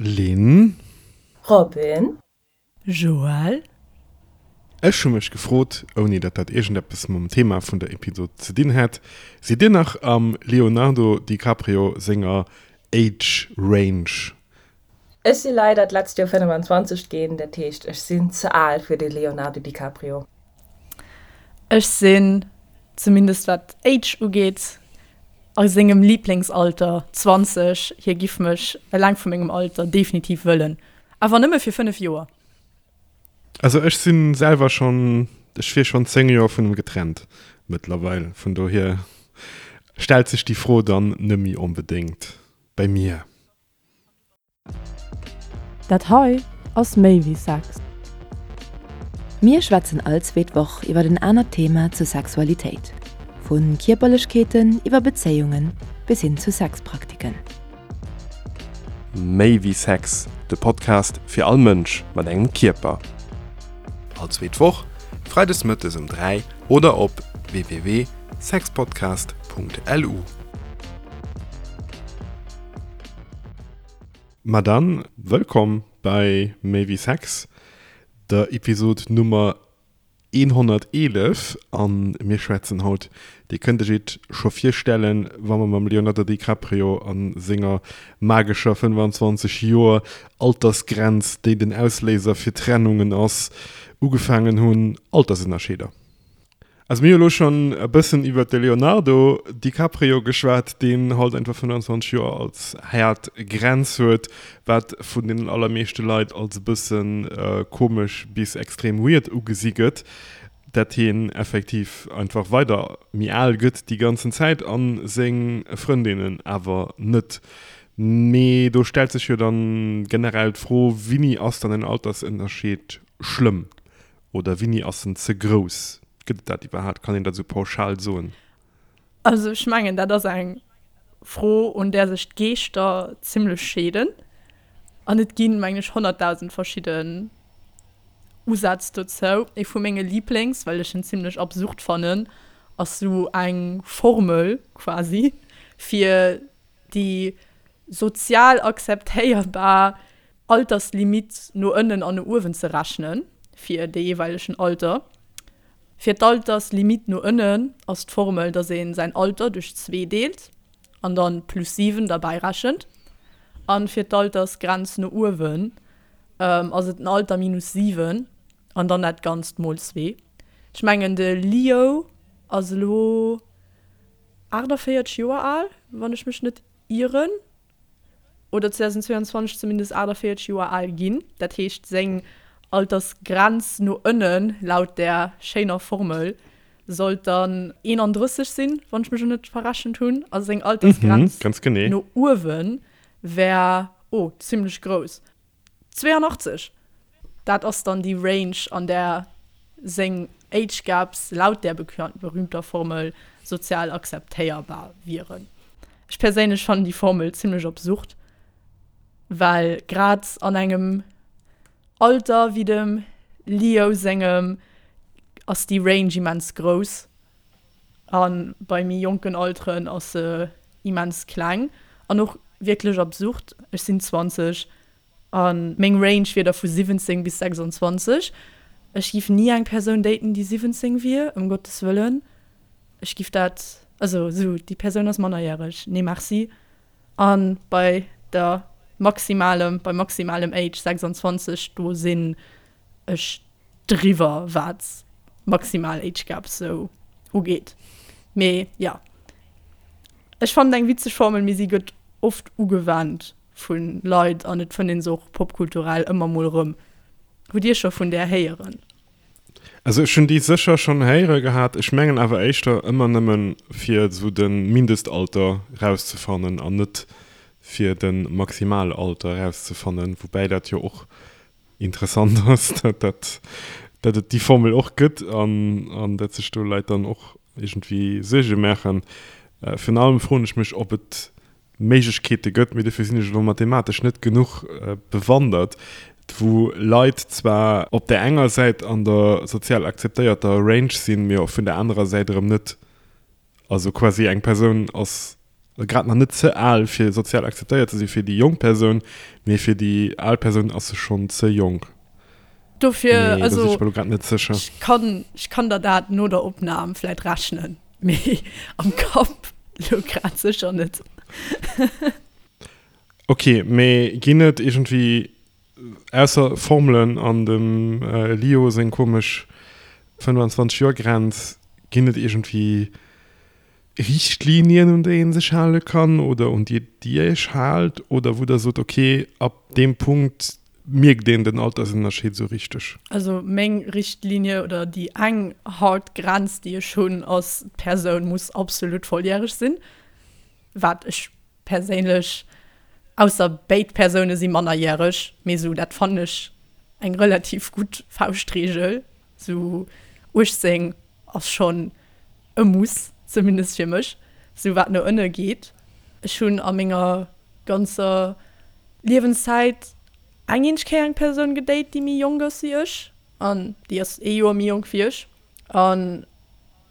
Lynn. Robin. Joël. Ech hu mech gefrot, ouni datt dat iergendeppes mam Thema vun der Episod ze dinn hätt, Sidd dir nach am Leonardo DiCaprio senger Age Range? Ech si leider d'letzt Joer 25 ginn, dat heescht ech sinn ze al fir de Leonardo DiCaprio. Ech sinn, zumindest wat Age ugeet, a sengem Liblingsalter, 20. Hie giff mech eleng vu mengem Alter definitiv wëllen, awer nëmme fir 5 Joer. Also ech si selwer schonn, ech wier schonn 10 Joer vun em getrennt mëttlerweil, vun dohier stellt sech déi Fro dann nëmmi onbedéngt bei mir. Dat hei ass méi wéi Sex. Mir schwätzen all zweet Woch iwwer en anert Thema zur Sexualitéit, vu Kierperlechkeeten iwwer Bezéiungen bis hin zu Sexpraktiken. Méi wéi Sex, de Podcast fir all Mënsch mat engem Kierper. All zweet Woch, freides mëttes um 3 oder op www.sexpodcast.lu. Ma dann, wëllkomm bei Méi wéi Sex, der Episod Nummer 111. A mir schwätzen haut, Dir kënnt iech et scho virstellen, wa mer mam Leonardo DiCaprio a senger magescher 25 Joer Altersgrenz, déi den Ausléiser fir Trennungen ass, ugefaangen hunn, Altersënnerscheeder. Also mir hu lo schonn e bëssen iwwert de Leonardo DiCaprio geschwat, deen halt einfach 25 Joer als haart Grenz huet, wat vun deenen allermeeschte Leit als e bësse komesch bis extrem weird ugesi gëtt, dat hien effektiv einfach weider méi al gëtt déi ganzen Zäit a seng Frëndinnen awer net. Mee do stellt sech jo dann generell d'Fro, Wini ass dann en Altersënnerscheed schlëmm? Oder wini ass en ze grouss? Gëtt et dat iwwerhaapt? Kann een dat esou pauschal soen? Also ech mengen, dat ass eng Fro, un där sech d'Geeschter zimlech scheeden. An et ginn, mengen ech, 100.000 verschidden Usätz dozou. Ee vu menge Liblings, well ech en zimlech absurd fannen, ass sou eng Formel quasi, fir déi sozial akzeptéierbar Alterslimitt no ënnen an no uewen ze rechnen fir de jeeweilegen Alter. Fir d'Alterslimitt no ënnen ass d'Formel, dass ee säin Alter duerch zwee deelt an dann plus 7 derbäi rechent. An fir d'Altersgrenz no uewen ass et den Alter minus 7 an dann dat Ganzt mol zwee. Ech mengen de Leo ass elo 48 Joer al, wann ech mech net ieren. oder 2022 zumindest 48 Joer al ginn. Dat heescht, seng Altersgrenz no ënnen, laut där schéiner Formel, sollt dann 31 sinn, wann ech mech elo net verrechent hunn. A seng Altersgrenz no uewe wär, oh, zimmlech grouss, 82! Dat ass dann déi Range, an där seng Age Gaps laut där berühmter Formel sozial akzeptéierbar wieren. Ech perséinlech fannen déi Formel zimlech absurd, well grad an engem Alter wéi dem Leo sengem ass déi Range immens grouss a bei méi jonken Alteren ass se immens kleng an och wierklech absurd. Ech sinn 20 A meng Range wier da vu 17 bis 26. Ech giff ni eng Persoun daten, déi 17 wier, ëm Gottes Wëllen. Ech giff dat, also esou, déi Persoun ass mannerjäreg, nee merci. A bei der maximalem, beim maximalem Age 26, do sinn ech driwwer, wat maximal Age Gaps sou ugeet. Mee jo, ech fannen eng witzeg Formel, mee si gëtt oft ugewennt. Vu Leit an et fënnt een se och popkulturell ëmmer mol erëm. Hutt Dir scho vun där héieren? Also ech hunn déi sécher schonn héiere gehat, ech mengen awer éischter ëmmer nëmmen fir esou de Mindestalter rauszefannen an net fir de Maximalalter rauszefannen, woubäi dat jo och interessant ass, dat dat dat et déi Formel och gëtt an an dat sech do Leit dann och iergendwéi Suerge maachen. Virun allem froen ech mech, ob et Méiglechkeete gëtt, mee dofir sinn ech elo mathematesch net genuch bewandert, wou Leit zwar op där enger Säit an der sozial akzeptéierter Range sinn, mee och vun der anerer Säit erëm net. Also quasi eng Persoun ass. Grad nach net ze al fir sozial akzeptéiert ze si fir déi jonk Persoun, mee fir déi al Persoun ass se schonn ze jonk. Dofir, also, do sinn ech mer lo grad net sécher. Ech kann, ech kann der dat no der Opnam vläit rechnen, mee am Kapp lo grad sécher net. Ok, mee ginn et iergendwéi, ausser Formelen an dem Lio seng komesch 25 Joer Grenz, ginn et iergendwéi Richtlinien, un déi ee sech hale kann oder un déi Dir Iech haalt oder wou Der sot, okay, ab deem Punkt mierkt een den Altersënnerscheed esou richteg? Also meng Richtlinie oder déi eng hard Grenz, déi ech hunn, ass, d'Persoun muss absolut volljäreg sinn, wat ech perséinlech, ausser béid Persoune si mannerjäreg, mee esou dat fannen ech eng relativ gutt Fauschtreegel, esou 18 ass schonn e Muss, zumindest fir mech, sou wat no ënne geet. Ech hunn a menger ganzer Liewenszäit eng eenzeg Kéier eng Persoun gedate, déi méi jonk ass wéi ech, an déi ass ee Joer méi jonk wéi ech. A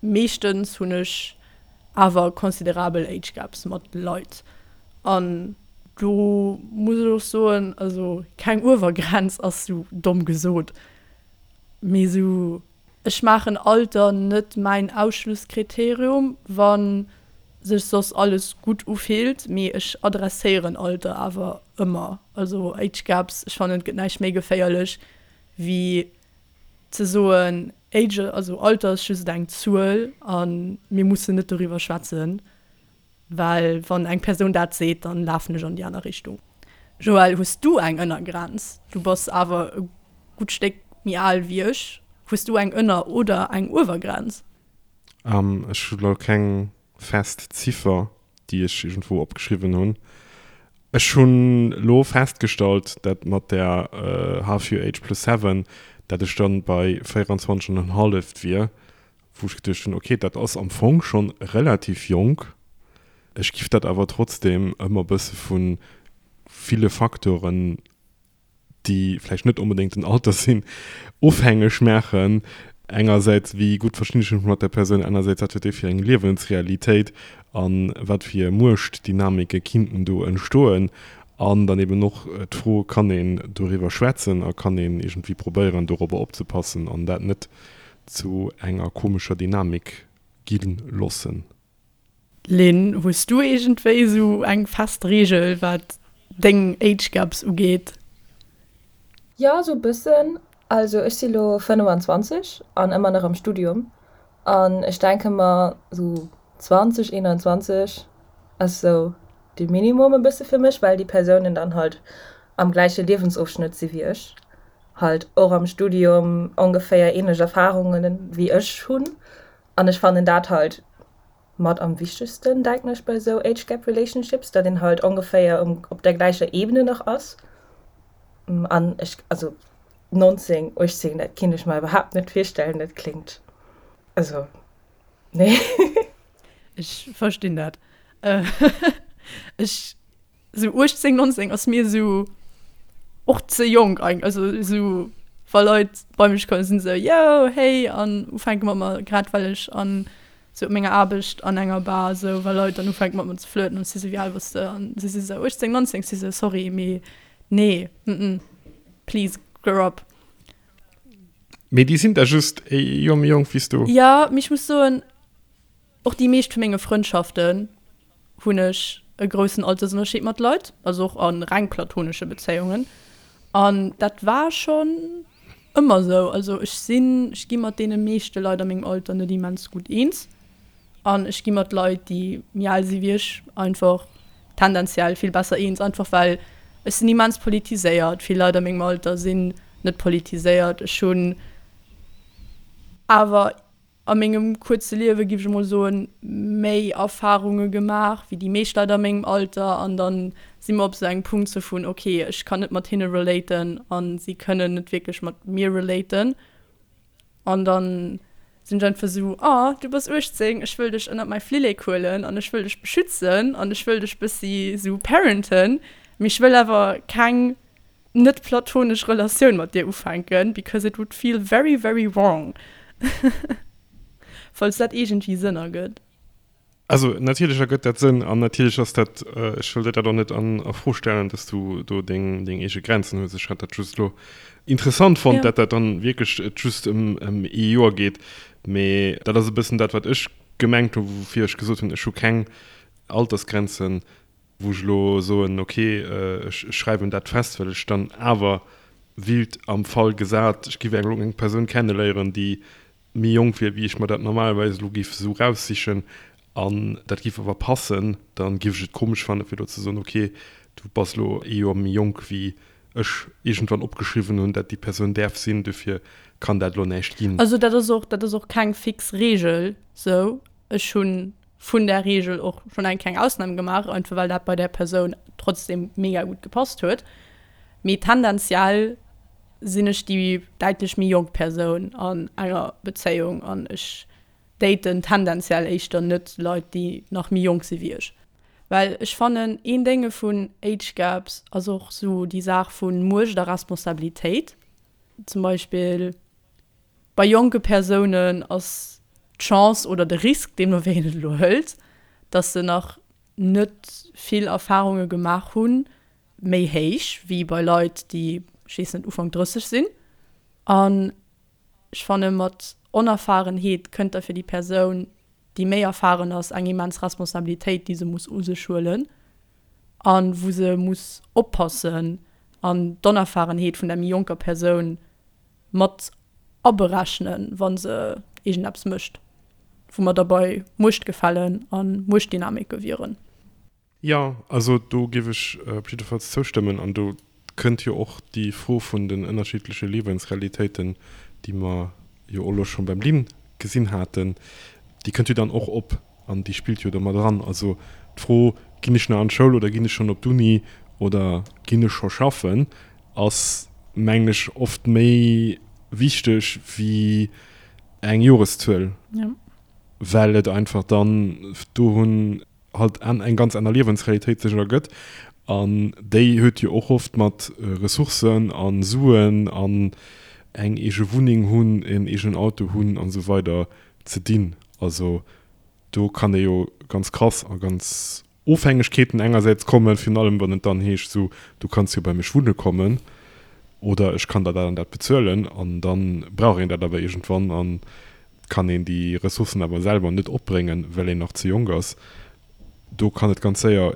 meeschtens hunn ech awer considerabel Age Gaps mat Leit. An do muss ech och soen, also keng Uewergrenz ass sou domm gesot, mee sou Ech maachen Alter net mäin Ausschlusskriterium, wa sech soss alles gutt ufillt, mee ech adresséieren Alter awer ëmmer. Also Age Gaps, ech fannen et gëtt näischt méi geféierlech wéi ze soen, Age, also Alter ass just eng Zuel a mir mussen net doriwwer schwätzen. Well wann eng Persoun dat seet, dann lafen ech an déi aner Richtung. Joël, hues du eng Ënnergrenz? Du bass awer e gutt Stéck méi al wéi ech. Hues du eng Ënner oder eng Uewergrenz? Ech hu lo keng fest Ziffer, déi ech iergendwou opgeschriwwen hunn. Ech hunn lo festgestallt, dat mat der Half your age plus seven, dat ech dann bei 24 an en halleft wier. Wou ech geduecht hunn, ok, dat ass am Fong schonn relativ jonk. Ech giff dat awer trotzdem ëmmer bësse vu ville Faktoren, déi vläicht net onbedéngt den Alter sinn, ofhängeg maachen. Engersäits, wéi gutt verstinn ech mech mat der Persoun, anersäits, wat huet déi fir eng Liewensrealitéit a wat fir Muechtdynamike kinnten do entstoen. An dann eben och d'Fro, kann een doriwwer schwätzen a kann een iergendwéi probéieren, dorobber opzepassen an dat net zu enger komescher Dynamik gi lossen. Lynn, hues du iergendwéi esou eng fest Reegel wat deng Age Gaps ugeet? Jo, esou e bëssen. Also ech si lo 25 an ëmmer nach am Studium an ech denke mer esou 20, 21 ass esou de Minimum e bësse fir mech, well déi Persounen dann halt am gläiche Liewensofschnëtt si wéi ech. halt och am Studium ongeféier ähnlech Erfahrungen wéi ech hunn an ech fannen dat halt mat am wichtegsten denken ech bei sou Age Gap Relationships, dat een halt ongeféier um op der gläicher Ebene nach ass an ech also 19, 18 dat kinnt ech mer iwwerhaapt net virstellen, dat kléngt also nee. Ech verstinn dat. Ech Sou 18, 19 ass mir sou och ze jonk eigentlech. Also sou wa Leit bei mech kommen, sinn se yo hey an ufänke mat mer, grad well ech an sou op menger Aarbecht an enger Bar sou, wa Leit dann ufänke mat mer ze flirten an si sou wéi al bass de an si si sou 18, 19, si sou sorry mee nee mm please grow up. Mee déi sinn da just e Joer méi jonk wéi s du. Jo, mee ech muss soen, och déi meescht vu menge Frëndschaften hunn ech e groussen Altersënnerscheed mat Leit, also och a reng platonesche Bezéiungen. An dat war schonn ëmmer esou. Also ech sinn, ech gi mat deene meeschte Leit a mengem Alter net immens gutt eens. An ech gi mat Leit, déi méi al si wéi ech, einfach tendenziell vill besser eens, einfach well ech sinn immens politiséiert. Vill Leit a mengem Alter sinn net politiséiert. Ech hunn awer a mengem kuerze Liewe, giff ech emol soen, méi Erfarunge gemaach wéi déi meescht Leit a mengem Alter an dann si mer op esou engem Punkt sou vun, ok, ech kann net mat hinne relaten a si kënnen net wierklech mat mir relaten an dann sinn ech einfach sou, oh, du bass 18, ech wëll dech ënnert mäi Flillek huelen an ech wëll dech beschützen an ech wëll dech bëssi sou parenten, mee ech wëll awer keng net platonesch Relatioun mat dir ufänken, because it would feel very very wrong. Falls dat iergendwéi Sënn ergëtt. Also natierlech ergëtt dat Sënn an natierlech ass dat, ech wëll der dat och net an a Fro stellen, dass du do deng deng eege Grenzen hues. Ech hat dat just elo interessant fonnt, dat dat dann wierklech et just ëm ëm ee Joer geet. Mee dat ass e bëssen dat, wat ech gemengt hu woufir ech gesot hunn, ech hu keng Altersgrenzen, wou ech elo soen, ok, ech schreiwen dat fest, well ech dann awer willt am Fall gesat, ech giff eng elo eng Persoun kenneléieren, déi méi jonk wier, wéi ech mer dat normalerweis elo giff esou raussichen, an dat giff awer passen, dann giff ech et komesch fannen, fir elo ze soen, ok, du bass elo ee Joer méi jonk, wéi ech iergendwann opgeschriwwen hunn, dat déi Persoun däerf sinn, dofir kann dat elo näischt ginn. Also dat ass och, dat ass och keng fix Reegel sou. Ech hunn vun där Reegel och schonn eng kleng Ausnam gemaach, einfach well dat bei där Persoun trotzdem mega gutt gepasst huet. Mee tendenziell sinn ech déi däitlech méi jonk Persoun an enger Bezéiung an ech daten tendenziell éischter net Leit, déi nach méi jonk si wéi ech. Well ech fannen, een Dénge vun Age Gaps ass och sou déi Saach vu Muecht a Responsabilitéit. Zum Beispill bei jonke Persounen ass d'Chance oder de Risk, deemno wéi een et elo hëlt, dass se nach net vill Erfarunge gemaach hunn, méi héich wéi bei Leit, déi, ech weess net, Ufank 30 sinn. An ech fanne mat Onerfahrenheet kënnt da fir déi Persoun, déi méi erfahren ass, eng immens Responsabilitéit, déi se muss u sech huelen a wou se muss oppassen an d'Onerfahrenheet vun der méi jonker Persoun mat aberechnen, wa se iergendeppes mécht, wou mer da bei Muechtgefällen a Muechtdynamike wieren. Jo, also do géif ech op jiddefalls zoustëmmen. An do kënnt jo och déi Fro vun den ënnerschiddleche Liewensrealitéiten, déi mer jo och elo scho beim Lynn gesinn haten, déi kënnt jo dann och op an déi spillt jo do mat eran. Also d'Fro, Ginn ech nach an d'Schoul oder ginn ech schonn op d'Uni oder ginn ech scho schaffen, ass, mengen ech, oft méi wichteg wéi eng Joreszuel, well et einfach dann do hunn, halt eng ganz aner Liewensrealitéit sech ergëtt an déi huet jo och oft mat Ressourcen a Suen an eng eege Wunneng hunn, en eegenen Auto hunn an esou weider ze dinn. Also do kann ee jo ganz krass a ganz Ofhängegkeeten engersäits kommen, virun allem wann et dann heescht esou, du kanns jo bei mech wunne kommen oder ech kann der dat an dat bezuelen an dann brauch een dat awer iergendwann an kann een déi Ressourcen awer selwer net opbréngen, well een nach ze jonk ass, do kann et ganz séier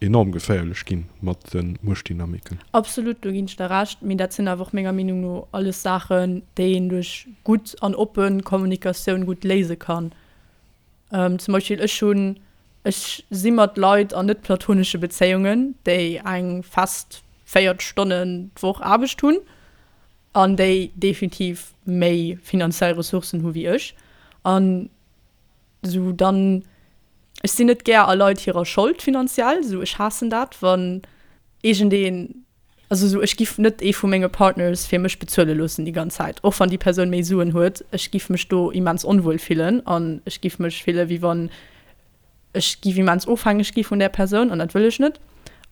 enorm geféierlech gi mat de Muechtdynamiken. Absolut, do ginn ech der Recht. Mee dat sinn awer och menger Meenung no alles Saachen, déi een duerch gutt an oppe Kommunikatioun gutt léise kann. Zum Beispill ech hunn, ech si mat Leit an net platonesche Bezéiungen, déi eng fest 40 Stonnen d'Woch Aarbecht hunn. An déi definitiv méi finanziell Ressourcen hu wéi ech. An esou dann, ech sinn net gär a Leit hirer Schold finanziell, esou ech haassen dat, wann iergendeen, also esou ech giff net ee vu menge Partners fir mech bezuele loossen déi ganz Zäit, och wann déi Persoun méi Suen huet. Ech giff mech do immens onwuel fillen an ech giff mech fille wéi wann Ech giff immens ofhängeg gi vun där Persoun an dat wëll ech net.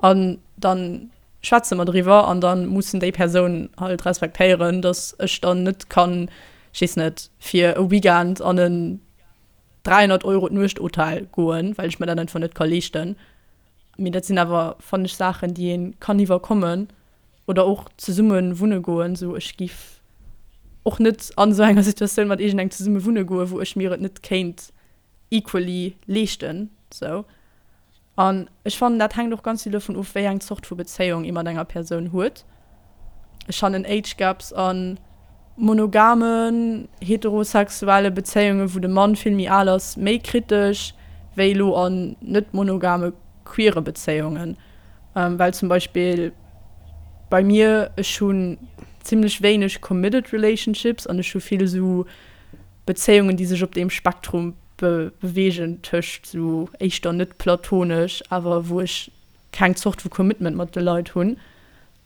An dann schwätze mer driwwer an dann mussen déi Persoun halt respektéieren, dass ech dann net kann, ech weess net, fir e Weekend an en 300 Euro d'Nuecht Hotel goen, well ech mer dat einfach net ka leeschten. Mee dat sinn awer, fannen ech, Saachen, déi ee kann iwwerkommen oder och zesumme wunne goen. Sou ech giff och net an esou enger Situatioun mat iergendengem zesumme wunne goen, wou ech mir et net kéint equally leeschten sou. An ech fannen dat hänkt och ganz vill dovun of wéi eng Zort vu Bezéiung ee mat enger Persoun huet. Ech fannen Age Gaps a monogamen heterosexuelle Bezéiunge wou de Mann vill méi al ass méi kritesch wéi elo an net monogame queere Bezéiungen. Well zum Beispill bei mir, ech hunn zimmlech wéineg committed relationships an ech hu vill esou Bezéiungen, déi sech op deem Spektrum beweegen tëscht esou éischter net platonesch, awer wou ech keng Zort vu Commitment mat de Leit hunn,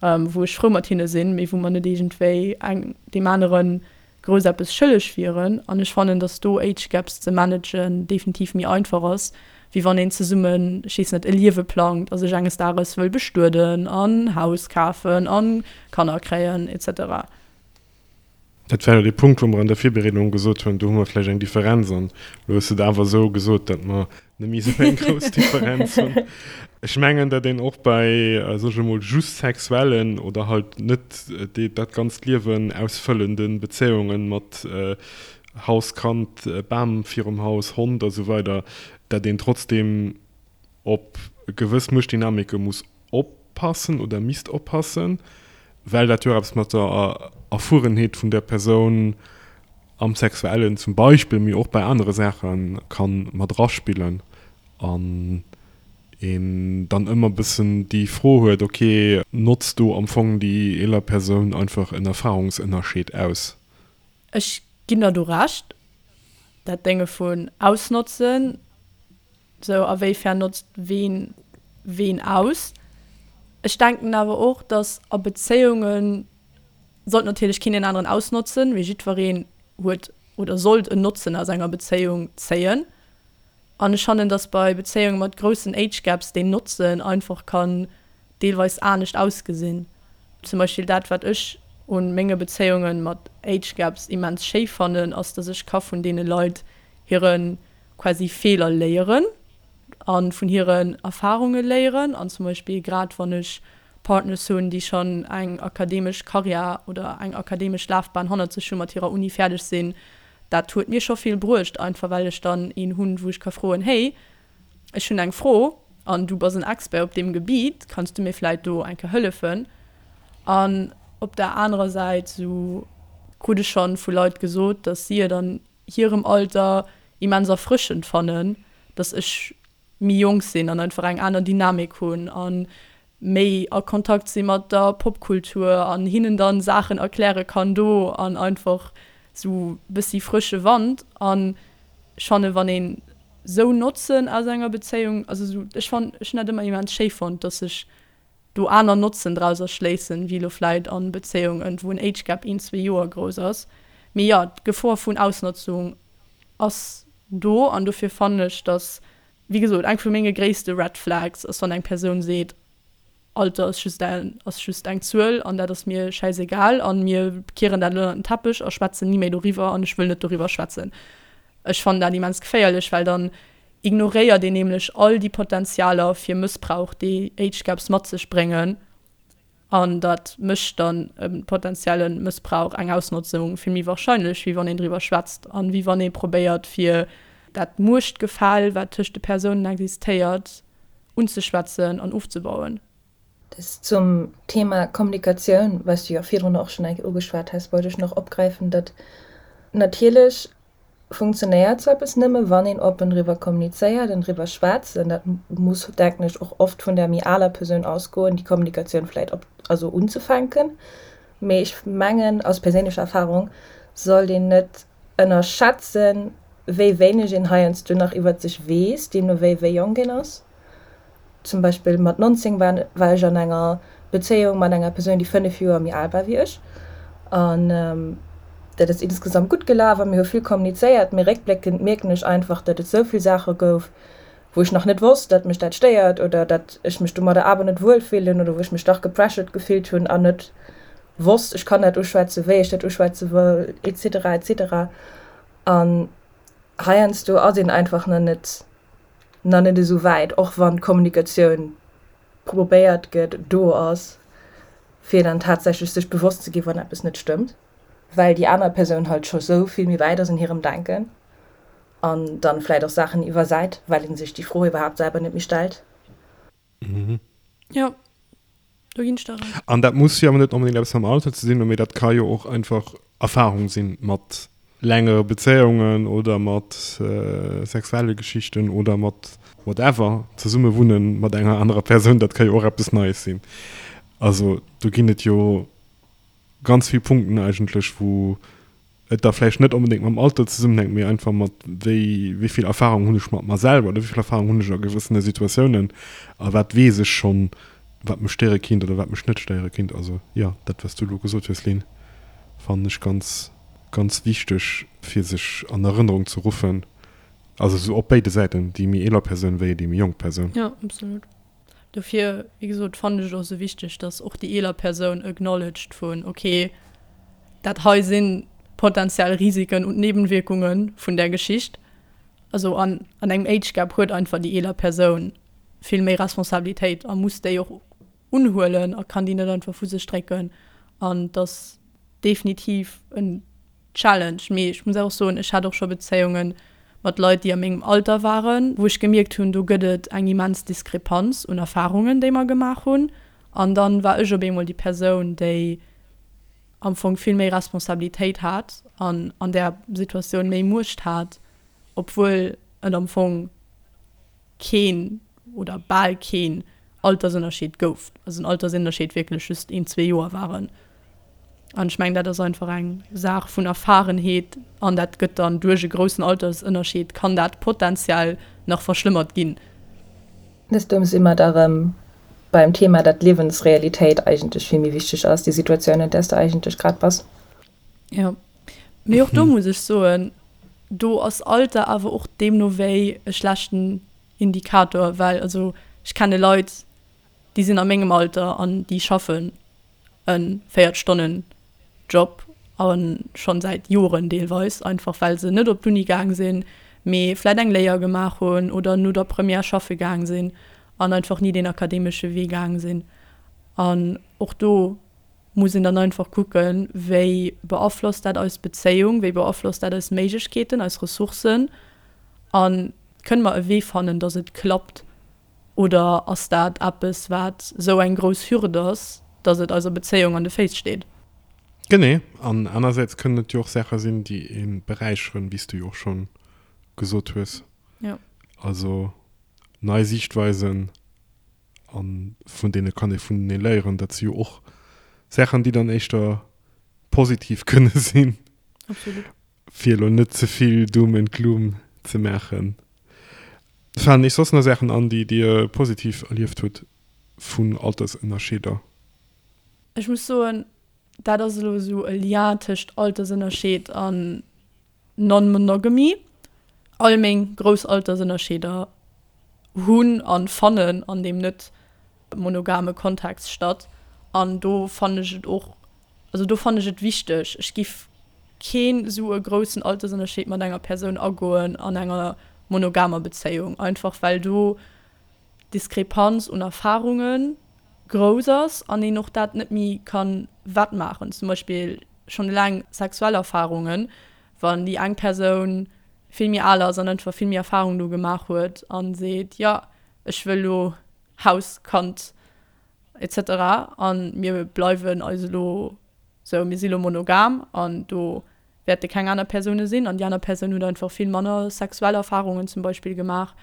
wou ech frou mat hinne sinn, mee wou mer net iergendwéi eng deem anere grouss eppes schëlleg wieren. An ech fannen, datt do Age Gaps ze managen definitiv méi einfach ass, wéi wann een zesummen, ech weess net, e Liewe plangt a sech enges Dages wëll bestueden an Haus kafen a Kanner kréien et cetera. Dat war jo dee Punkt, wou mer an der Virbereedung gesot hunn, do hu mer vläicht eng Differenz. An elo hues de et awer esou gesot, datt mer net méi esou eng grouss Differenz hunn. Ech mengen, datt een och bei, soe ech emol, just sexuellen oder halt net dat ganzt Liewen ausfëllende Bezéiunge mat Haus, Kand, Bam virum Haus, Hond a sou weider, datt een trotzdeem op gewëss Muechtdynamike muss oppassen oder misst oppassen, well dat jo och eppes mat der Erfuerenheet vun der Persoun am Sexuellen zum Beispill, mee och bei anere Saache ka mat eraspillen an een dann ëmmer e bëssen déi Fro huet, ok, notzt do am Fong déi eeler Persoun einfach en Erfahrungsënnerscheed aus? Ech ginn der do Recht, dat Dénge vun ausnotzen, Sou, a wéifern notzt ween ween aus? Ech denken awer och, dass a Bezéiunge sollt natierlech keen deen aneren ausnotzen, mee jiddwereen huet oder sollt en Notzen aus enger Bezéiung zéien. An ech fannen, dass bei Bezéiunge mat groussen Age Gaps deen Notzen einfach kann deelweis anescht ausgesinn. Zum Beispill dat, wat ech un menge Bezéiunge mat Age Gaps immens schéi fannen, ass, dass ech ka vun deene Leit hire quasi Feeler léieren a vun hiren Erfarunge léieren. An zum Beispill grad wann ech Partners hunn, déi schonn eng akademesch Karriär oder eng akademesch Lafbahn hannert sech hunn, mat hirer Uni fäerdeg sinn, dat huet mir scho vill bruecht, einfach well ech dann een hunn, wou ech ka froen, Hey, ech hunn eng Fro an du bass en Expert op deem Gebiet, kanns du mir vläit do eng Kéier hëllefen? An op der anerer Säit, sou krut ech schonn vu Leit gesot, datt si et an hirem Alter immens erfrëschend fannen, dass ech méi jonk sinn an einfach eng aner Dynamik hunn a méi a Kontakt si mat der Popkultur an hinnen dann Saachen erkläre kann do an einfach sou bëssi frësche Wand. An ech fanne wann een sou Notzen aus enger Bezéiung, also sou ech fann ech hunn dat ëmmer immens schéi fonnt, dass ech do aner Notzen draus erschléissen, wéi elo vläit an Bezéiungen, wou en Age Gap een, zwee Joer grouss ass. Mee jo, d'Gefor vun Ausnotzung ass do an dofir fannen ech, dass, wéi gesot, eng vu menge gréisste Red Flags ass, wann eng Persoun seet, Alter ass just eng, ass just eng Zuel an dat ass mir schäisegal an mir kieren dat elo ënnert den Teppech a schwätzen ni méi doriwwer an ech wëll net doriwwer schwätzen. Ech fannen dat immens geféierlech, well dann ignoréiert een nämlech all déi Potenzialer fir Mëssbrauch, déi Age Gaps mat sech bréngen. An dat mécht dann e potenzielle Mëssbrauch, eng Ausnotzung vill méi wahrscheinlech, wéi wann een driwwer schwätzt an wéi wann ee probéiert, fir dat Muechtgefäll, wat tëscht de Persounen existéiert, unzeschwätzen an ofzebauen. Dës zum Thema Kommunikatioun, wat s du jo virdrun och schonn eng Kéier ugeschwat has, wollt ech nach opgräifen, datt natierlech funktionéiert sou eppes nëmme wann een oppen driwwer kommunizéiert an driwwer schwätzt. An dat muss, denken ech, och oft vun der méi aler Persoun ausgoen, déi Kommunikatioun vläit op, also unzefänken. Mee ech mengen, aus perséinlecher Erfahrung, sollt een net ënnerschätzen, wéi wéineg een heiansdo nach iwwert sech weess, deemno wéi wéi jonk een ass. Zum Beispill mat 19 war war ech an enger Bezéiung mat enger Persoun, déi 5 Joer méi al war wéi ech. An dat ass insgesamt gutt gelaf a mir hu vill kommunizéiert. Mee réckbléckend mierken ech einfach, datt et esou vill Saache gouf, wou ech nach net wosst, datt mech dat stéiert oder datt ech mech domadder awer net wuel fillen oder wou ech mech dach gepressured gefillt hunn an net wosst, ech kann dat uschwätzen, wéi ech dat uschwätze wëll, etc. Etc. An heiansdo ass een einfach nach net nach net esou wäit, och wann d'Kommunikatioun probéiert gëtt, do ass, fir dann tatsächlech sech bewosst ze ginn, wann eppes net stëmmt, well déi aner Persoun halt scho sou vill méi wäit ass an hirem Denken an dann vläit och Saachen iwwersäit, well ee sech déi Fro iwwerhaapt selwer net méi stellt. Jo, do ginn ech der Recht. An dat muss jo awer net onbedéngt eppes mam Alter ze dinn hunn, mee dat ka jo och einfach Erfahrung sinn mat längere Bezéiungen oder mat sexuelle Geschichten oder mat whatever, zesumme wunnen mat enger anerer Persoun, dat ka jo och eppes Neies sinn. Also do ginn et jo ganz vill Punkten eigentlech, wou et da vläicht net onbedéngt mam Alter zesummenhänkt, mee einfach mat wéi wéi vill Erfahrung hunn ech mat mer selwer oder wéi vill Erfahrung hunn ech a gewëssene Situatiounen a wat weess ech schonn, wat mech stéiere kinnt oder wat mech net stéiere kinnt. Also jo, dat wat s du elo gesot hues, Lynn, fannen ech ganz, ganz wichteg fir sech an Erënnerung ze ruffen. Also esou op béide Säiten, déi méi eeler Persoun wéi déi méi jonk Persoun. Jo, absolut. Dofir, wéi gesot, fannen ech et och esou wichteg, dass och déi eeler Persoun acknowledged vun, okay, dat hei sinn. potenziell Risiken und Nebenwirkungen vun där Geschicht. Also an an engem Age Gap huet einfach déi eeler Persoun vill méi Responsabilitéit a muss déi och unhuelen a kann déi net einfach vu sech drécken an et ass definitiv en Challenge. Mee ech muss och soen, ech hat och scho Bezéiunge mat Leit, déi a mengem Alter waren, wou ech gemierkt hunn, do gëtt et eng immens Diskrepanz un Erfarungen, déi mer gemaach hunn. An dann war ech op eemol déi Persoun, déi am Fong vill méi Responsabilitéit hat an an där Situatioun méi Muecht hat, obwuel et am Fong keen oder bal keen Altersënnerscheed gouf, also den Altersënnerscheed wierklech just een, zwee Joer waren. An ech mengen, dat ass einfach eng Saach vun Erfarenheet an dat gëtt dann duerch e groussen Altersënnerscheed kann dat potenziell nach verschlëmmert ginn. Dëst si mer da rëm beim Thema, datt d'Liewensrealitéit eigentlech vill méi wichteg ass, déi Situatioun, an där s de eigentlech grad bass. Jo, mee och do muss ech soen, do ass Alter awer och deemno wéi e schlechten Indikator, well also ech kenne Leit, déi sinn a mengem Alter an déi schaffen e 40 Stonnen Job a schonn säit Joren deelweis, einfach well se net op d'Uni gaang sinn, mee vläit eng Léier gemaach hunn oder no der Première schaffe gaang sinn an einfach ni deen akademesche Wee gaang sinn. An och do muss een dann einfach kucken, wéi beaflosst dat eis Bezéiung, wéi beaflosst dat eis Méiglechkeeten, eis Ressourcen a kënne mer e Wee fannen, datt et klappt oder ass dat eppes, wat esou eng grouss Hürd ass, datt et eiser Bezéiung an de Féiss steet? Genee. An anersäits kënnen et jo och Saache sinn, déi ee beräicheren, wéi s du jo och scho gesot hues. Jo. Also nei Siichtweisen A vun deene kann ee vunenee léieren. Dat si jo och Saachen, déi dann éischter positiv kënne sinn. Absolut. Fir elo net ze vill Doom and Gloom ze maachen. Falen Iech soss nach Saachen an, déi Dir positiv erlieft hutt vun Altersënnerscheeder? Ech muss soen, dat ass elo esou e Lien tëscht Altersënnerscheed an Non-Monogamy, All meng grouss Altersënnerscheeder hunn a fannen an deem net monogame Kontext statt. An do fannen ech et och, also do fannen ech et wichteg, ech giff keen esou e groussen Altersënnerscheed mat enger Persoun agoen an enger monogamer Bezéiung, einfach well do d'Diskrepanz un Erfarunge grouss ass an een och dat net méi ka wettmaachen. Zum Beispill schonn eleng sexuell Erfarungen, wann déi eng Persoun vill méi al ass an einfach vill méi Erfarung do gemaach huet a seet, jo ech wëll elo Haus, Kand etc. A mir bleiwen eis elo sou, mir si elo monogam an do wäerte keng aner Persoune sinn an déi aner Persoun huet einfach vill manner sexuell Erfarungen zum Beispill gemaach,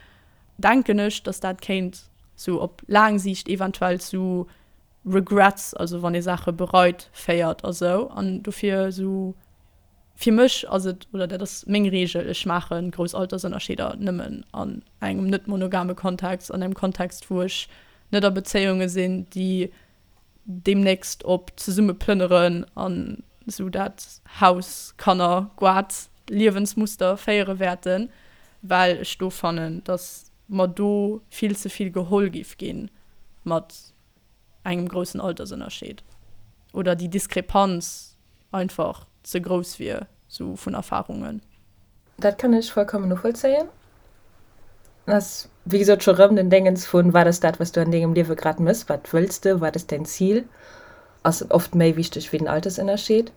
denken ech, datt dat kéint sou op laang Siicht eventuell zu Regrets, also wann ee Saache bereit, féiert a sou. An dofir sou fir mech ass et, oder dat ass meng Reegel, ech maache grouss Altersënnerscheeder nëmmen an engem net monogame Kontext, an engem Kontext wou ech net a Bezéiunge sinn, déi deemnächst op zesumme plënneren an esou dat Haus, Kanner, Goart, Liewensmuster féiere wäerten, well ech do fannen, datt mer do vill ze vill geholl giff gi mat engem groussen Altersënnerscheed oder déi Diskrepanz einfach ze grouss wier, sou vun Erfarungen. Dat kann ech vollkommen novollzéien. Ass wéi gesot scho rëm den Déngens vun, wat ass dat, wat s du an dengem Liewe grad mëss, wat wëlls de, wat ass däin Zil, ass oft méi wichteg wéi den Altersënnerscheed.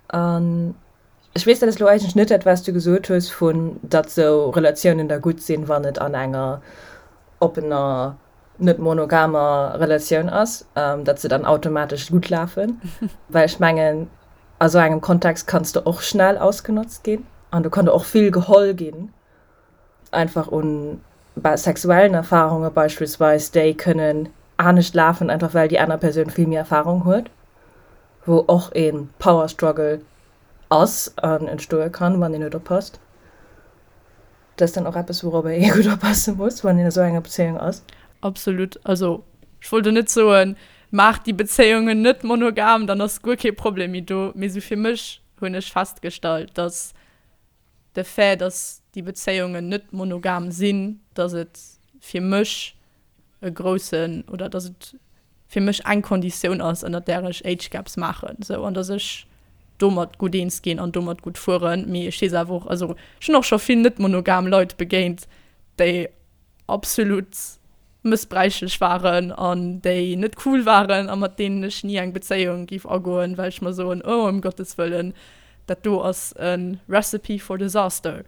An ech weess, dat ass elo eigentlech net dat, wat s du gesot hues vun, datt sou Relatiounen da gutt sinn, wann et an enger oppener, net monogamer Relatioun ass, datt se dann automatesch gutt lafen, well ech mengen, a sou engem Kontext kanns de och schnell ausgenotzt ginn an do kann der och vill geholl ginn, einfach un sexuellen Erfarunge beispillsweis, déi kënnen anescht lafen, einfach well déi aner Persoun vill méi Erfarung huet, wou och ee Power Struggle ass an entstoe kann, wann een net oppasst. Dat ass dann och eppes, wourobber ee gutt oppasse muss, wann een a sou enger Bezéiung ass. Absolut. Also ech wollt elo net soen, maacht déi Bezéiungen net monogam, dann ass guer kee Problem méi do. Mee sou fir mech hunn ech festgestallt, dass de Fait, dass déi Bezéiungen net monogam sinn, dass et fir mech e groussen oder dass et fir mech eng Konditioun ass, ënnert där ech Age Gaps maachen, sou an dass ech. domat gutt eens ginn an domat gutt fueren. Mee ech weess awer och, also ech hunn och scho vill net monogam Leit begéint, déi absolut mëssbräichlech waren an déi net cool waren a mat deenen ech ni eng Bezéiung géif agoen, well ech mer soen, oh ëm Gottes Wëllen, dat do ass e Recipe for disaster.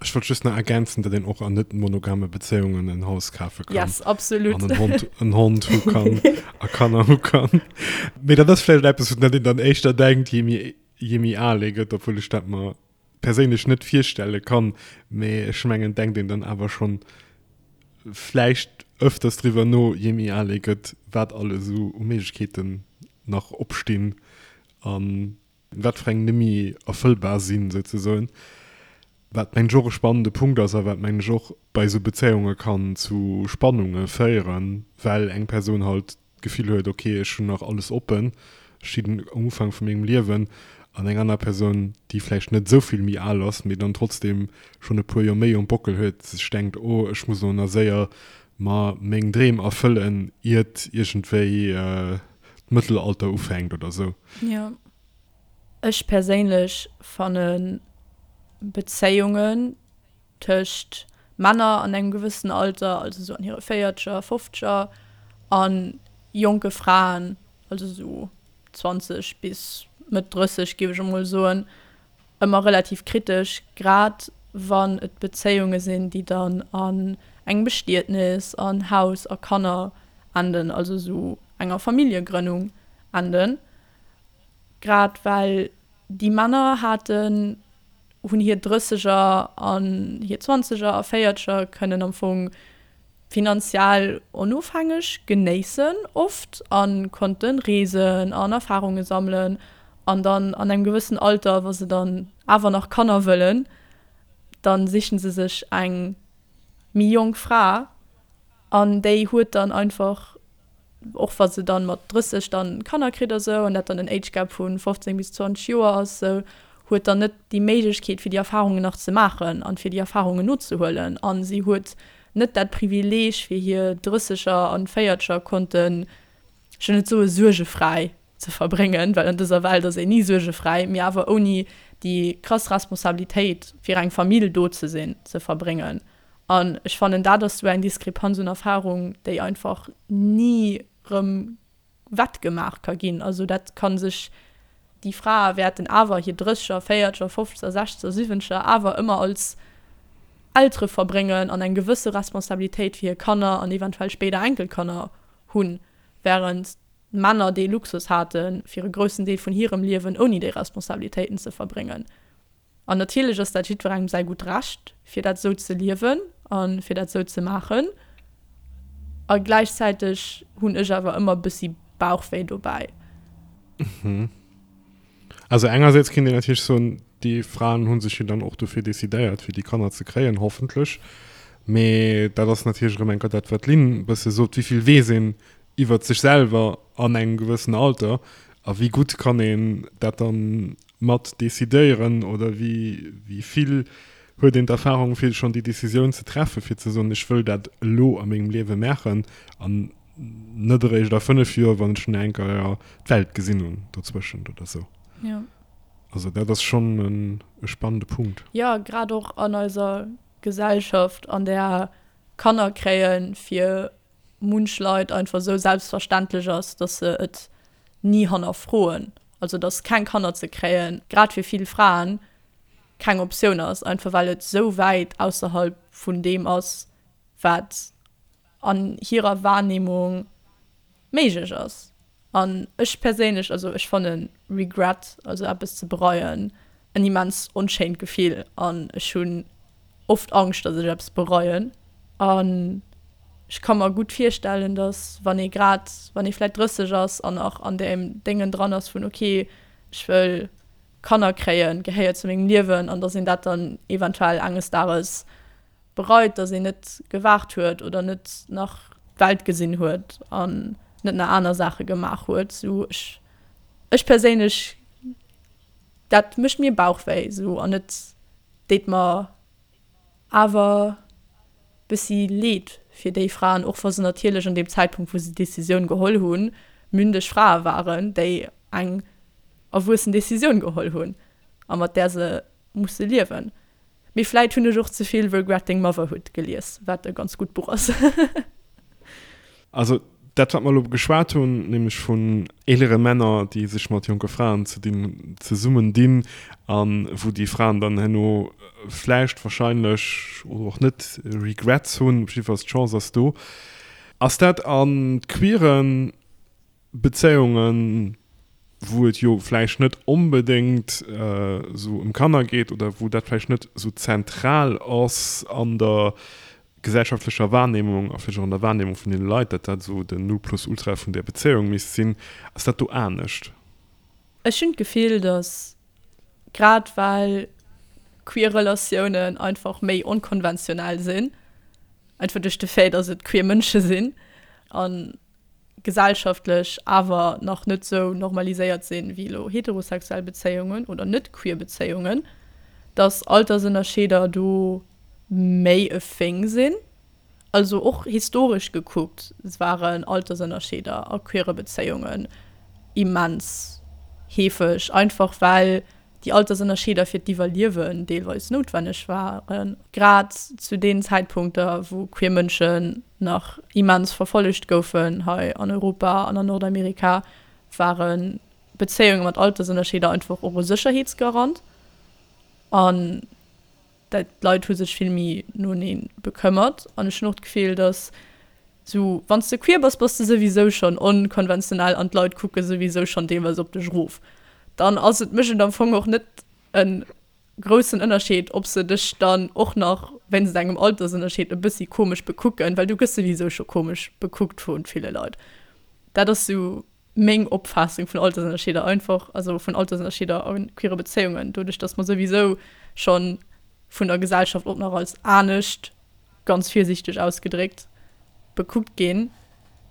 Ech wollt just nach ergänzen, datt een och an net monogame Bezéiungen en Haus kafe kann. Yes, absolut. An en Hond, en Hond hu kann a Kanner hu kann. Mee dat ass vläicht eppes, un dat een dann éischter denkt, je méi, je méi al ee gëtt, obwuel ech dat mer perséinlech net virstelle kann. Mee ech mengen, denkt een dann awer schonn vläicht ëfters driwwer no, je méi al ee gëtt, wat alles esou u Méiglechkeeten nach opstinn an wat fir eng nemmi erfëllbar sinn, souzesoen. Wat mengen ech och e spannende Punkt ass a wat mengen ech och bei esou Bezéiunge kann zu Spannunge féieren, well eng Persoun halt d'Gefill huet, ok, ech hunn nach alles oppen, ech stinn um Ufank vu mengem Liewen, an eng aner Persoun, déi vläicht net esou vill méi al ass, mee dann trotzdem schonn e puer Joer méi um Bockel huet, sech denkt, oh, ech muss elo nach séier mer meng Dreem erfëllen, iert iergendwéi d'Mëttelalter ufänkt oder sou. Jo. Ech perséinlech fanne Bezéiungen tëscht Männer an engem gewëssen Alter, also sou an hire Véierzeger, Fofzeger, a jonke Fraen, also sou 20 bis Mëtt 30 géif ech emol soen, ëmmer relativ kritesch, grad wann et Bezéiunge sinn, déi dann an engem Bestietnis, an Haus a Kanner enden, also esou enger Familljegrënnung enden. Grad well déi Männer haten, hunn hir Drësseger an hir Zwanzeger a Véierzeger kënnen am Fong finanziell onofhängeg genéissen oft a konnte reesen an Erfarunge sammelen an dann an engem gewëssen Alter, wa se dann awer nach Kanner wëllen, da sichen se sech eng méi jonk Fra an déi huet dann einfach och wa se dann mat 30 dann Kanner kritt a sou, an dat dann en Age Gap vu 15 bis 20 Joer ass, sou, huet dann net déi Méiglechkeet fir déi Erfahrungen nach ze maachen an fir déi Erfahrungen nozehuelen an si huet net dat Privileeg fir hir Drësseger an Véierzeger konnten, ech wëll net soe suergefräi ze verbréngen, well an dëser Welt ass een ni suergefräi, mee awer ouni déi krass Responsabilitéit fir eng Famill do ze sinn, ze verbréngen. An ech fannen, dat ass esou eng Diskrepanz un Erfahrung, déi einfach ni rëm wettgemaach ka ginn. Also dat ka sech, déi Frae wäerten awer hir Drësseger, Véierzeger, Fofzeger, Sechzeger, Siwwenzeger awer ëmmer als Eltere verbréngen an eng gewësse Responsabilitéit fir hir Kanner an eventuell spéider Enkelkanner hunn, wärend d'Männer dee Luxus haten, fir e groussen Deel vun hirem Liewen ouni déi Responsabilitéiten ze verbréngen. An natierlech ass dat jiddwerengem säi gutt Recht, fir dat esou ze liewen a fir dat esou ze maachen. A gläichzäiteg hunn ech awer ëmmer e bëssi Bauchwéi dobäi. Also engersäits kéint een natierlech soen, déi Fraen hu sech jo dann och dofir decidéiert, fir déi Kanner ze kréien, hoffentlech. Mee dat ass natierlech erëm eng Kéier dat, wat d'Lynn e bësse sot, Wéi vill weess een iwwert sech selwer an engem gewëssen Alter a wéi gutt kann een dat dann mat decidéieren oder wéi wéi vill huet een d'Erfahrung fir schonn déi Decisioun ze treffen, fir ze soen, ech wëll dat elo a mengem Liewe maachen an net eréischt a 5 Joer, wann ech nach eng Kéier d'Welt gesinn hunn dozwëschent oder sou. Jo. Also dat ass schonn e spannende Punkt. Jo, grad och an eiser Gesellschaft, an där Kanner kréie fir munch Leit einfach esou selbstverständlech ass, dass se et ni hannerfroen. Also dass keng Kanner ze kréien, grad fir vill Fraen, keng Optioun ass, einfach well et esou wäit ausserhalb vun deem ass, wat an hirer Wahrnehmung méiglech ass. An ech perséinlech, also ech fanne Regret, also eppes ze bereien, en immens onschéint Gefill an ech hunn oft Angscht, datt ech eppes bereien. An ech ka mer gutt virstellen, datt wann ee grad, wann ee vläicht 30 ass an nach an deem Déngen dran ass vun ok, ech wëll Kanner kréien, gehéiert zu mengem Liewen, an datt een dat dann eventuell enges Dages bereit, dass een net gewaart huet oder net nach d'Welt gesinn huet an net nach aner Saache gemaach huet. Sou ech, ech perséinlech, dat mécht mir Bauchwéi sou an et deet mer awer bëssi leed fir déi Fraen, och wa se natierlech an deem Zäitpunkt wou se d'Decisioun geholl hunn, mündeg Frae waren, déi. eng erwuessen Decisioun geholl hunn a mat där se musse liewen. Mee vläit hunn ech och ze vill Regretting Motherhood gelies, wat e ganz gutt Buch ass. Also dat wat mer elo geschwat hunn, nämlech vun eelere Männer, déi sech mat jonke Fraen ze dinn, zesummen dinn a wou déi Fraen dann herno vläicht, wahrscheinlech oder och net Regrets hunn, op jiddefalls d'Chance ass do. Ass dat a queeren Bezéiungen, wou et jo vläicht net onbedéngt esou ëm Kanner geet oder wou dat vläicht net esou zentral ass an der gesellschaftlecher Wahrnehmung a vläicht och an der Wahrnehmung vun deene Leit, datt dat esou den Nonplusultra vun där Bezéiung misst sinn, ass dat do anescht? Ech hunn d'Gefill, datt grad well queer Relatiounen einfach méi onkonventionell sinn, einfach duerch de Fait, datt et queer Mënsche sinn an gesellschaftlech awer nach net sou normaliséiert sinn, wéi elo heterosexuell Bezéiungen oder net queer Bezéiungen, dass Altersënnerscheeder do méi e Thing sinn. Also och historesch gekuckt waren Altersënnerscheeder a queere Bezéiungen immens heefeg, einfach well déi Altersënnerscheeder fir d'Iwwerliewen deelweis noutwenneg waren, grad zu deenen Zäitpunkter, wou queer Mënschen nach immens verfollegt goufen hei an Europa an an Nordamerika, ware Bezéiunge mat Altersënnerscheeder einfach och e Sécherheetsgarant an d'Leit hu sech vill méi noenee bekëmmert. An ech hunn och d'Gefill, datt Sou, wann s de queer bass, bass de souwisou schonn onkonventionell an d'Leit kucke souwisou schonn deelweis op dech erof. Dann ass et, mécht et am Fong och net e groussen Ënnerscheed, ob se dech dann och nach wéinst engem Altersënnerscheed e bëssi komesch bekucken, well du gëss souwisou scho komesch bekuckt vu ville Leit. Dat ass sou meng Opfaassung vun Altersënnerscheeder einfach, also vun Altersënnerscheeder a queere Bezéiungen, doduerch datt mer souwisou schonn vun der Gesellschaft och nach als anescht ganz virsiichteg ausgedréckt, bekuckt ginn,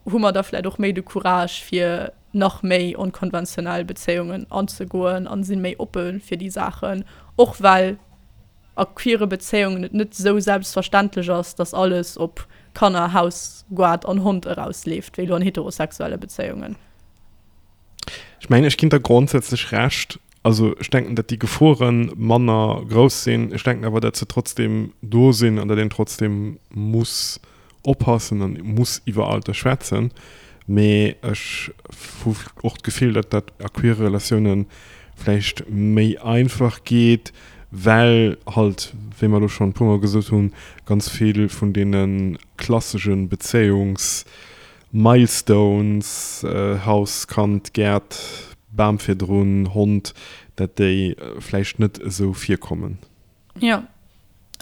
hu mer da vläicht och méi de Courage fir nach méi onkonventionell Bezéiungen anzegoen an si méi oppe fir déi Saachen, och well a queere Bezéiungen et net esou selbstverständlech ass, dass alles op Kanner, Haus, Goart an Hond erausleeft, wéi elo an heterosexuelle Bezéiungen. Ech mengen, ech ginn der grondsätzlech Recht. Also ech denken, datt déi Gefore manner grouss sinn. Ech denken awer, datt se trotzdem do sinn an datt een trotzdem muss oppassen an muss iwwer Alter schwätzen. Mee ech hu och d'Gefill, datt dat a queere Relatioune vläicht méi einfach geet, well halt, wéi mer elo schonn e puermol gesot hunn, ganz vill vun deene klassesche Bezéiungs Milestones, Haus, Kand, Gäert, Bam virdrun, Hond, dat déi vläicht net esou virkommen. Jo,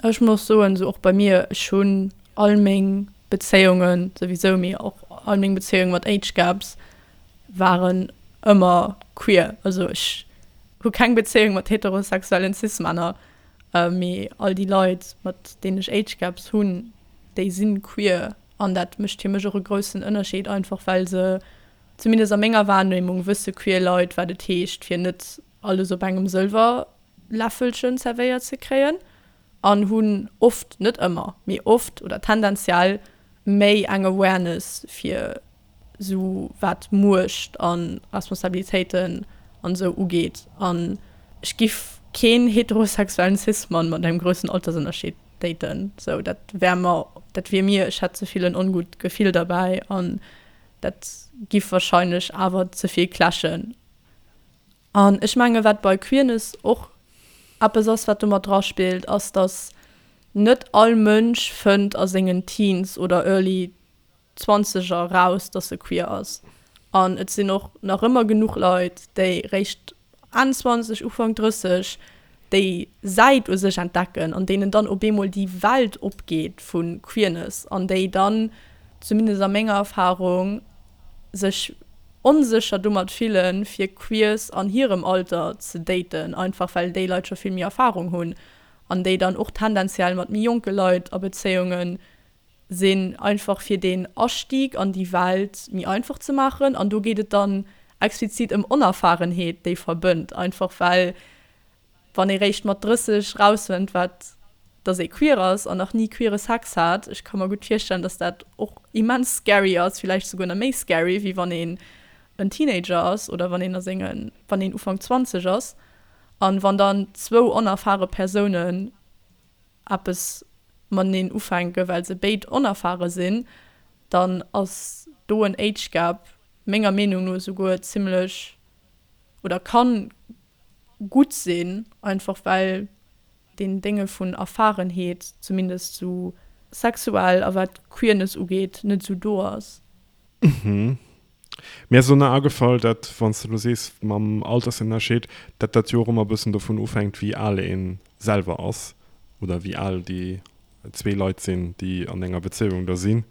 ech muss soen, esou och bei mir, ech hunn all meng Bezéiungen souwisou, mee och all meng Bezéiunge mat Age Gaps waren ëmmer queer. Also ech hu keng Bezéiung mat heterosexuellen Cis-Männer, mee all déi Leit, mat deenen ech Age Gaps hunn, déi si queer. An dat mécht fir mech och e groussen Ënnerscheed, einfach well se, zumindest a menger Wahrnehmung, wësse queer Leit, wat et heescht, fir net alles op engem Sëlwerläffelchen zerwéiert ze kréien an hunn oft, net ëmmer, mee oft oder tendenziell méi eng Awareness fir sou wat Muecht a Responsabilitéiten an esou ugeet. An ech giff keen heterosexuellen Cis-Mann mat engem groussen Altersënnerscheed daten, sou dat wär mer, dat wier mir, ech hätt ze vill en ongutt Gefill derbäi an dat giff wahrscheinlech awer ze vill clashen. An ech menge wat bei Queerness och eppes ass wat do mat dra spillt, ass dass net all Mënsch fënnt a sengen Teens oder early Zwanzeger raus, dass se queer ass. An et sinn och nach ëmmer genuch Leit, déi réischt Enn 20, Ufank 30 déi Säit u sech entdecken an deenen dann op eemol déi Welt opgeet vu Queerness an déi dann, zumindest a menger Erfarung, sech onsécher domat fillen, fir Queers an hirem Alter ze daten, einfach well déi Leit scho vill méi Erfarung hunn an déi dann och tendenziell mat méi jonke Leit a Bezéiunge sinn, einfach fir deen Astieg an déi Welt méi einfach ze maachen. An do geet et dann explizit ëm Onerfahrenheet, déi verbënnt, einfach well wann ee réischt mat 30 rausfënnt, wat dass ee queer ass an nach ni queere Sex hat, ech ka mer gutt virstellen, dass dat och immens scary ass, villäicht souguer nach méi scary, wéi wann ee. en Teenager ass oder wann een a sengen, wann een Ufank 20 ass an wann dann zwou onerfare Persounen eppes mateneen ufänken, well se béid onerfare sinn, dann ass do en Age Gap menger Meenung no esouguer zimmlech oder kann gutt sinn, einfach well deen Dénge vun Erfahrenheet, zumindest sou sexuell a wat Queerness ugeet, net sou do ass. Mhm. Mir ass elo nach agefall, dat wann s de elo sees mam Altersënnerscheed, dat dat jo och ëmmer e bëssen dovun ofhänkt, wéi al ee selwer ass oder wéi al déi zwee Leit sinn, déi an enger Bezéiung da sinn.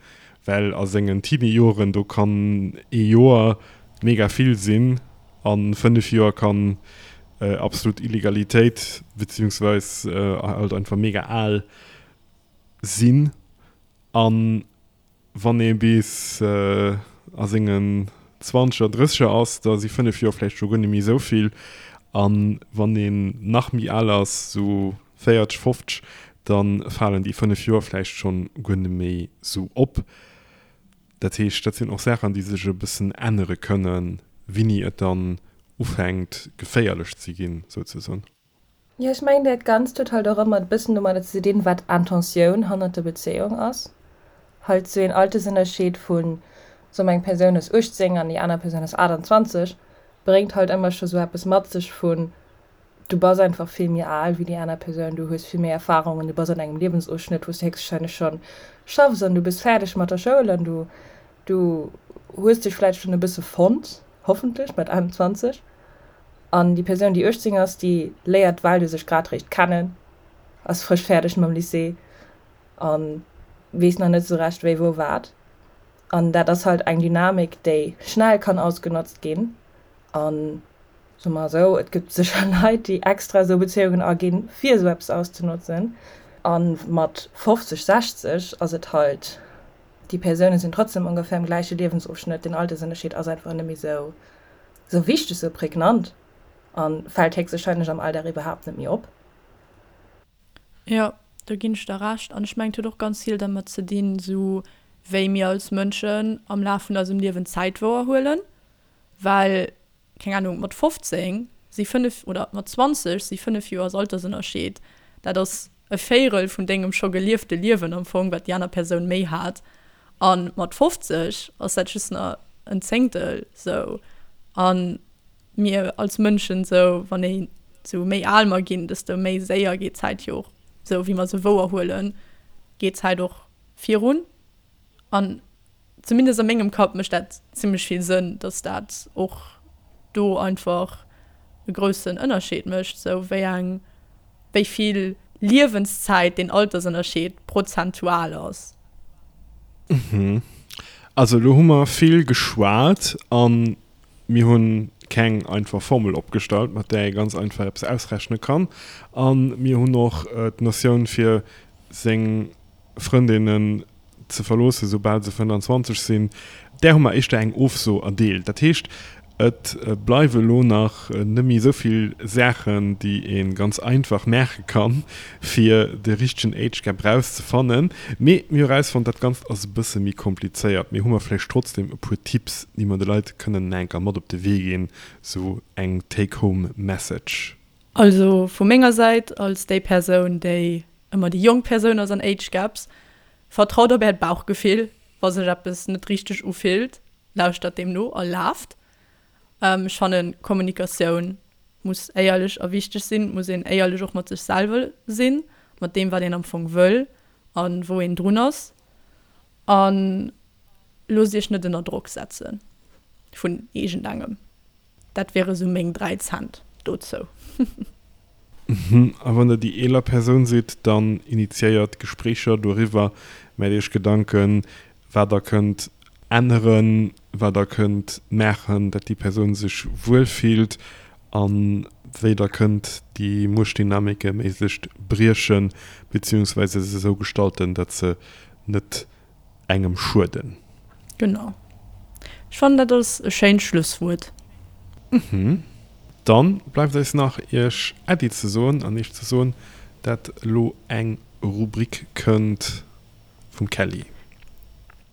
Well a sengen Teenie-Joren, do kann ee Joer mega vill sinn a 5 Joer kann absolut Illegalitéit beziehungsweis halt einfach mega al sinn. An Wann ee bis a sengen Zwanzeger, Drësseger ass, da si 5 Joer vläicht scho guer net méi esou vill. A wann een nach méi al ass, esou 40, 50, da falen déi 5 Joer vläicht schonn guer net méi esou op. Dat heescht, dat sinn och Saachen, déi sech e bëssen ännere kënnen, wéini et dann ufänkt geféierlech ze ginn, souzesoen. Jo, ech mengen dat Ganzt huet halt och ëmmer e bëssen domadder ze dinn, wat Intentioun hannert der Bezéiung ass. Halt sou een Altersënnerscheed vun, soe mer eng Persoun ass 18 an déi aner Persoun ass 28, bréngt halt ëmmer scho sou eppes mat sech vun, du bass einfach vill méi al wéi déi aner Persoun, du hues vill méi Erfarungen, du bass an engem Liewensofschnëtt, wou s du héchstwahrscheinlech schonn schaffs an du bass fäerdeg mat der Schoul an du du hues dech vläicht schonn e bësse fonnt, hoffentlech mat 21. An déi Persoun, déi 18 ass, déi léiert d'Welt u sech grad réischt kennen, ass frësch fäerdeg mam Lycée a weess nach net esou recht wéi, wou, wat. An dat ass halt eng Dynamik, déi schnell kann ausgenotzt ginn. A soe mer esou, et gëtt sécher Leit, déi extra esou Bezéiungen aginn, fir esou eppes auszenotzen. A mat 50, 60 ass et halt, déi Persoune sinn trotzdem ongeféier am gläiche Liewensofschnëtt, den Altersënnerscheed ass einfach net méi esou Sou wichteg, sou prägnant a fält héchstwahrscheinlech am Alldag iwwerhaapt net méi op. Jo, do ginn ech der Recht. An ech mengen, et huet och ganz vill dermat ze dinn, sou wéi mir als Mënschen am Laf vun eisem Liewen Zäit wouerhuelen. Well, keng Ahnung, mat 15 si 5 oder mat 20 si 5 Joers Altersënnerscheed, dat ass e Véirel vun dengem scho geliefte Liewen am Fong, wat déi aner Persoun méi hat. A mat 50 ass dat just nach en Zéngtel sou. A mir als Mënschen sou, wann ee sou méi al mer ginn, desto méi séier geet d'Zäit jo och, sou wéi mer se wouerhuelen, geet d'Zäit och virun. An zumindest a mengem Kapp mécht dat zimmlech vill Sënn, dass dat och do einfach e groussen Ënnerscheed mécht, sou wéi eng, wéi vill Liewenszäit deen Altersënnerscheed prozentual ass. Mhm. Also elo hu mer vill geschwat a mir hunn keng einfach Formel opgestallt, mat där ee ganz einfach eppes ausrechne kann. A mir hunn och d'Notioun fir seng Frëndinnen ze verloossen, soubal se 25 sinn, där hu mer éischter eng Ofso erdeelt. Dat heescht, et bleiwe elo nach net méi esou vill Saachen, déi ee ganz einfach maache kann, fir de richtegen Age Gap erauszefannen. Mee mir hu erausfonnt, dat Ganzt ass e bësse méi komplizéiert. Mee hu mer vläicht trotzdem e puer Tipps, déi mer de Leit kënnen nach eng Kéier mat op de Wee ginn, sou eng Take-home Message. Also vu menger Säit, als déi Persoun, déi ëmmer déi jonk Persoun ass an Age Gaps, Vertraut op äert Bauchgefill, wa sech eppes net richteg ufillt, lauschtert deem no a laaft. Ech fannen, Kommunikatioun muss éierlech a wichteg sinn, et muss een éierlech och mat sech selwer sinn, mat deem wat een am Fong wëll a wou een drun ass. A loosst iech net ënner Drock setze vun iergendengem. Dat wiere sou meng 3 Cent dozou. A wann der déi eeler Persoun sidd, dann initiéiert Gespréicher doriwwer, maacht iech Gedanken, wat der kënnt änneren, wat der kënnt maachen, dat déi Persoun sech wuel fillt a wéi der kënnt déi Muechtdynamike méiglechst briechen, beziehungsweise se esou gestalten, dat se net engem schueden. Genau. Ech fannen dat ass e schéint Schlusswuert. Mhm. Dann bleift eis nach iech Äddi ze soen an iech ze soen dat elo eng Rubrik kënnt vum Kelly.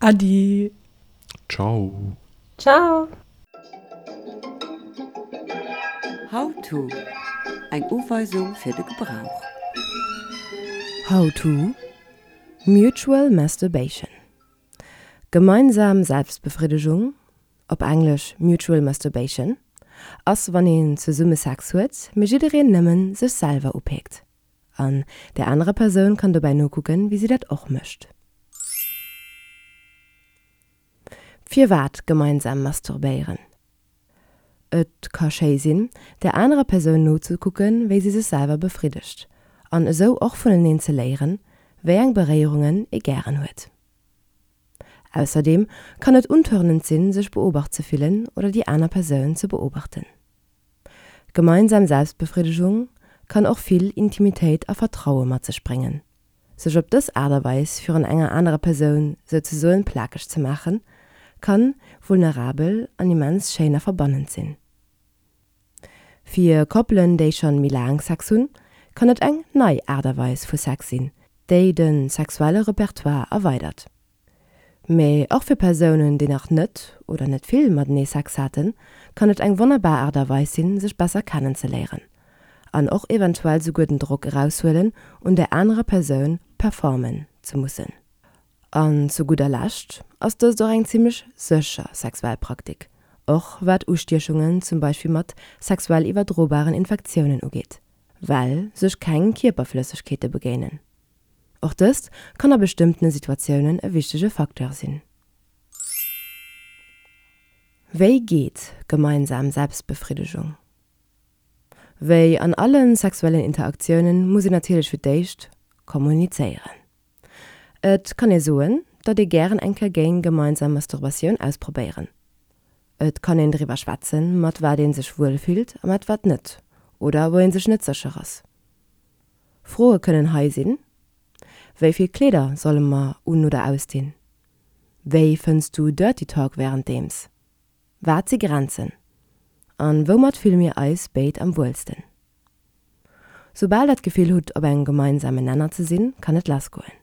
Äddi. Ciao. Ciao. How to, Eng Uweisung fir de Gebrauch. How to, Mutual Masturbation, Gemeinsam Selbstbefriddegung, op Englesch Mutual Masturbation, ass wann een zesumme Sex huet, mee jiddereen nëmmen sech selwer upeekt. An där anerer Persoun kann dobäi nokucken, wéi si dat och mécht. Firwat gemeinsam masturbéieren? Et ka schéi sinn, där anerer Persoun nozekucken, wéi si sech selwer befriddegt, an esou och vuneneen ze léieren, wéi eng Beréierungen ee gären huet. Ausserdeem kann et untörnend sinn, sech beobacht ze fillen oder déi aner Persoun ze beobachten. Gemeinsam Selbstbefriddegung kann och vill Intimitéit a Vertraue mat sech bréngen. Sech op dës Aart a Weis virun enger anerer Persoun souzesoen plakeg ze maachen, kann vulnerabel an immens schéin a verbannend sinn. Fir Koppelen, déi schonn méi laang Sex hunn, kann et eng nei Aart a Weis vu Sex sinn, déi de sexuelle Repertoire erweidert. Mee och fir Persounen, déi nach net oder net vill matenee Sex haten, kann et eng wonnerbar Aart a Weis sinn, sech besser kennenzeléieren. An och eventuell souguer den Drock eraushuelen, un där anerer Persoun performen ze mussen. An zu gudder Lescht ass dëst och eng zimmlech sécher sexuell Praktik, och wat Ustiechungen zum Beispill mat sexuell iwwerdrobaren Infektiounen ugeet, well sech keng Kierperflëssegkeete begéinen. Och dëst kann a bestëmmtene Situatiounen e wichtege Facteur sinn. Wéi geet gemeinsam Selbstbefriddegung? Wéi an alle sexuellen Interaktiounen muss een natierlech fir d'éischt kommunizéieren. Et kann ee soen, datt ee gären eng Kéier géing gemeinsam Masturbatioun ausprobéieren. Et kann een driwwer schwätzen, mat wat ee sech wuel fillt a mat wat net, oder wou ee sech net sécher ass. Froe kënnen hei sinn, Wéi vill Kleeder solle mer un oder ausdinn? Wéi fënns du Dirty Talk wärenddeems? Wat si Grenzen? An woumat fille mir eis béid am wuelsten? Soubal der d'Gefill hutt op engem gemeinsamen Nenner ze sinn, kann et lass goen.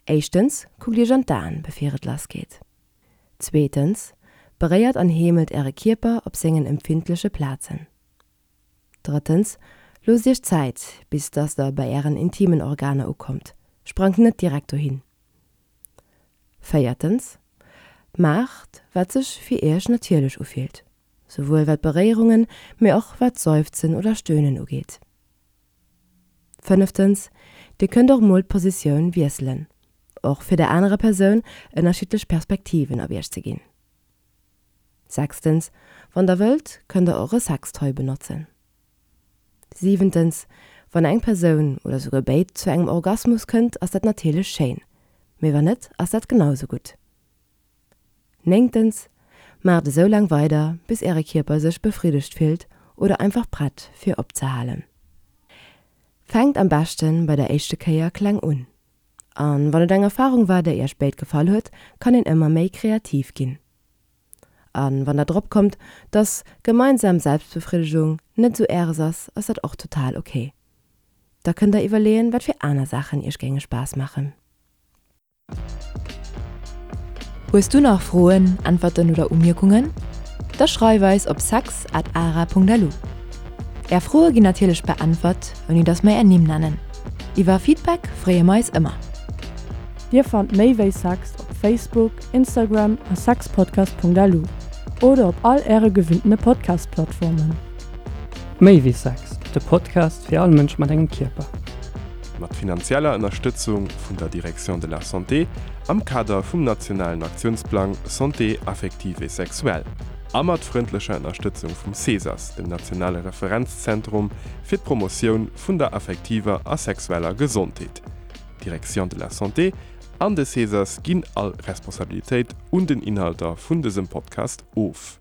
Éischtens, kuckt iech an d'Aen bevir et lass geet. Zweetens, beréiert an heemelt äre Kierper op sengen empfindleche Plazen. Drëttens, loosst iech Zäit, bis dass der bei ären intimen Organer ukommt, sprangt net direkt dohin. Véiertens, maacht wat sech fir iech natierlech ufillt, souwuel wat Beréierungen, mee och wat Seufzen oder Stöhnen ugeet. Fënneftens, dir kënnt och mol d'Positioun wiesselen, och fir der anerer Persoun ënnerschiddlech Perspektiven op iech ze ginn. Sechstens, Wann der wëllt, kënnt der och e Sextoy benotzen. Siwentens, Wann eng Persoun, oder souguer béid, zu engem Orgasmus kënnt, ass dat natierlech schéin, mee wann net, ass dat genau sou gutt. Néngtens, Maacht esou laang weider, bis äre Kierper sech befriddegt fillt oder einfach prett fir opzehalen. Fänkt am beschten bei der éischte Kéier kleng un. An wann et eng Erfahrung war, déi iech béid gefall huet, kann een ëmmer méi kreativ ginn. An wann der drop kommt, dass gemeinsam Selbstbefriddegung net sou äres ass, ass dat och total ok. Da kënnt der iwwerleeën, wat fir aner Saachen iech géinge Spaass maachen. Hues du nach Froen, Äntwerten oder Umierkungen? Da schreif eis op sex at ara.lu. Är Froe ginn natierlech beäntwert, ouni dass mer är Nimm nennen. Iwwer Feedback freeë mer eis ëmmer. Dir fannt méi wéi Sex op Facebook, Instagram a sexpodcast.lu oder op all äre gewinntene Podcast-Plattformen. Méi wéi Sex, de Podcast fir all Mënsch mat engem Kierper. Mat finanzieller Ënnerstëtzung vun der Direction de la Santé am Kader vum nationalen Aktiounsplang Santé affective et sexuelle a mat frëndlecher Ënnerstëtzung vum CESAS, dem nationale Referenzzentrum fir d'Promotioun vun der affektiver a sexueller Gesondheet. D'Direction de la Santé an de CESAS ginn all Responsabilitéit un den Inhalter vun dësem Podcast of.